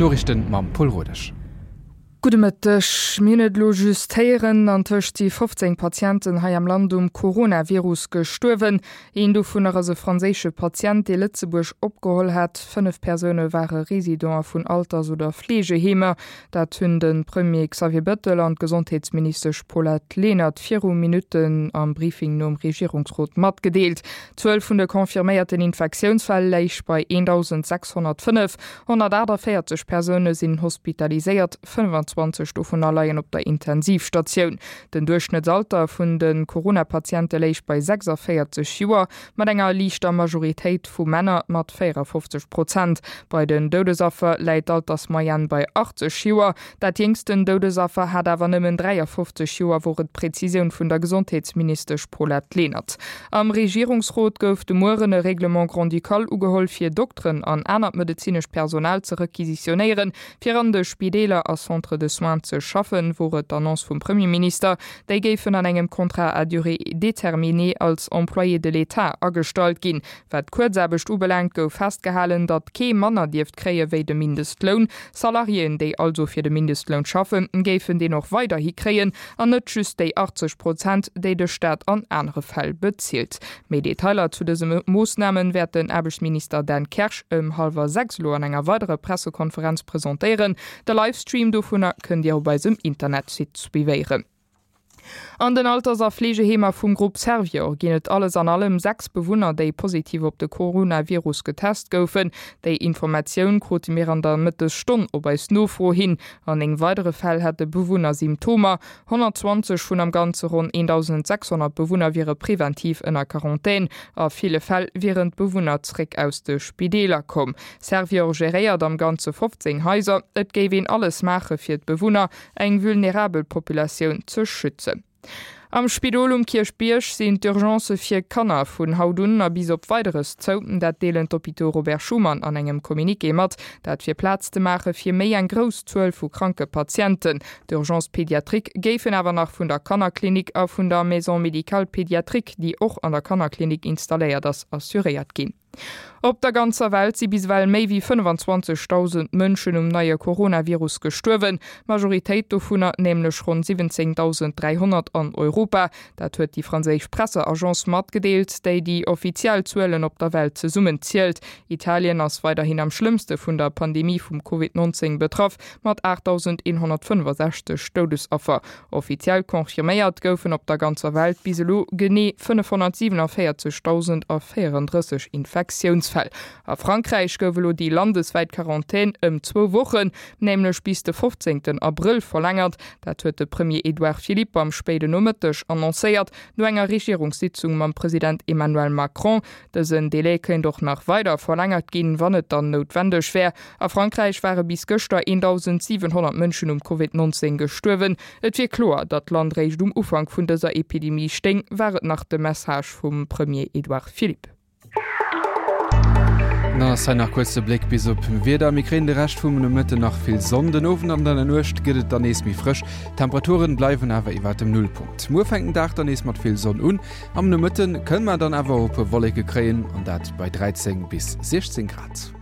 D'Noriichten mam Paul Rodesch. Gudde Mëtteg. Mir hunn et elo just héieren, Antëscht si 15 Patienten hei am Land um Coronavirus gestuerwen. Een dovunner ass e franséische Patient, dee Lëtzebuerg opgeholl hat. 5 Persoune ware Residente vun Alters oder Fleegeheemer. Dat hunn de Premier Xavier Bettel an d'Gesondheetsministesch Paulette Lenert viru Minutten am Briefing nom Regierungsrot matgedeelt. D'Zuel vun de confirméierten Infektiounsfäll léich bei 1.605. 148 Persoune sinn hospitaliséiert, 25 dovunner leien op der Intensivstatioun. Den Duerchschnëttsalter vun de Corona-Patiente léich bei 46 Joer, mat enger liichter Majoritéit vu Männer mat 54 Prozent. Bei den Doudesaffer läit d'Altersmoyenne bei 80 Joer. Dat jéngsten Doudesaffer hat awer nëmmen 53 Joer, wor et d'Prezisioun vun der Gesondheetsministesch Paulette Lenert. Am Regierungsrot gouf de Mueren e Règlement grand-ducal ugeholl, fir Dokteren an anert medezinescht Personal ze requisitionéieren, fir an de Spideeler a Centres de soins ze schaffen, wor et d'Annonce vum Premierminister. Déi géifen an engem Contrat à durée déterminée als Employés de l'État agestallt ginn. Wat d'Kuerzaarbecht ubelaangt, gouf festgehalen, datt kee manner dierft kréie wéi de Mindestloun. Salariéen, déi also fir de Mindestloun schaffen, géifen deen och weiderhi kréien an net just déi 80 Prozent, déi de Staat an anere Fäll bezilt. Méi Detailer zu dëse Moossname wäert den Aarbechtsminister Dan Kersch ëm hallwer 6 elo an enger weiderer Pressekonferenz presentéieren. De Livestream dovunner kënnt Dir op eisem Internetsite suivéieren. An den Alters a Fleegeheemer vum Grupp Servior ginn et alles an allem 6 Bewunner, déi positiv op de Coronavirus getest goufen. Déi Informatioun krute mir an der Mëttesstonn op eis Nofro hin. An 9 weidere Fäll hätte Bewunner Symptomer. 120 vun am Ganze ronn 1.600 Bewunner wiere preventiv ënner Quarantän. A ville Fäll wieren d'Bewunner zréck aus de Spideeler komm. Servior geréiert am Ganze 15 Haiser. Et géif een alles maache fir d'Bewunner, eng vulnerabel Populatioun ze schützen. Am Spidol um Kierchbierg sinn d'Urgencë fir Kanner vun haut un a bis op Weideres zou. Dat deelen d'Hôpitaux Robert Schuman an engem Communiqué mat. Dat fir Plaz ze maache fir méi eng grouss Zuel vu kranke Patienten. D'Urgences pédiatriques géifen awer nach vun der Kannerklinik a vun der Maison médicale pédiatrique, déi och an der Kannerklinik installéiert ass, assuréiert ginn. Op der ganzer Welt si bis ewell méi wéi 25.000 Mënschen um neie Coronavirus gestuerwen, d'Majoritéit dovunner, nämlech ronn 17.300 an Europa. Dat huet déi franséisch Presseagence matgedeelt, déi déi offiziell Zuelen op der Welt zesummen zielt. Italien ass weiderhin am schlëmmste vun der Pandemie vum Covid 19 betraff, mat 8.165 Doudesaffer. Offiziell confirméiert goufen op der ganzer Welt bis elo genee 547.034 Infektiounsfäll. A Frankräich gouf elo déi landeswäit Quarantän ëm zwou Wochen, nämlech bis de 15 Abrëll verlängert. Dat huet de Premier Edouard Philippe am spéiden Nomëtteg annoncéiert, no enger Regierungssitzung mam President Emmanuel Macron. Dësen Delai kéint och nach weider verlängert ginn, wann et dann noutwendeg wär. A Frankräich ware bis gëschter 1.700 Mënschen um Covid 19 gestuerwen. Et wier kloer, datt d'Land réischt um Ufank vun dëser Epidemie stéing, war et nach de Message vum Premier Edouard Philippe. Dann ass hei nach kuerz de Bléck bis op Wieder. Mir kréien de Rescht vum Nomëtten nach vill Sonn, den Owend an an der Nuecht gëtt et dann nees méi frësch. D'Temperaturen bleiwen awer iwwert dem Nullpunkt. Muer fänkt den Dag dann nees mat vill Sonn un, am Nomëtte kënne mer dann awer och e puer Wolleke kréien, an dat bei 13 bis 16 Grad.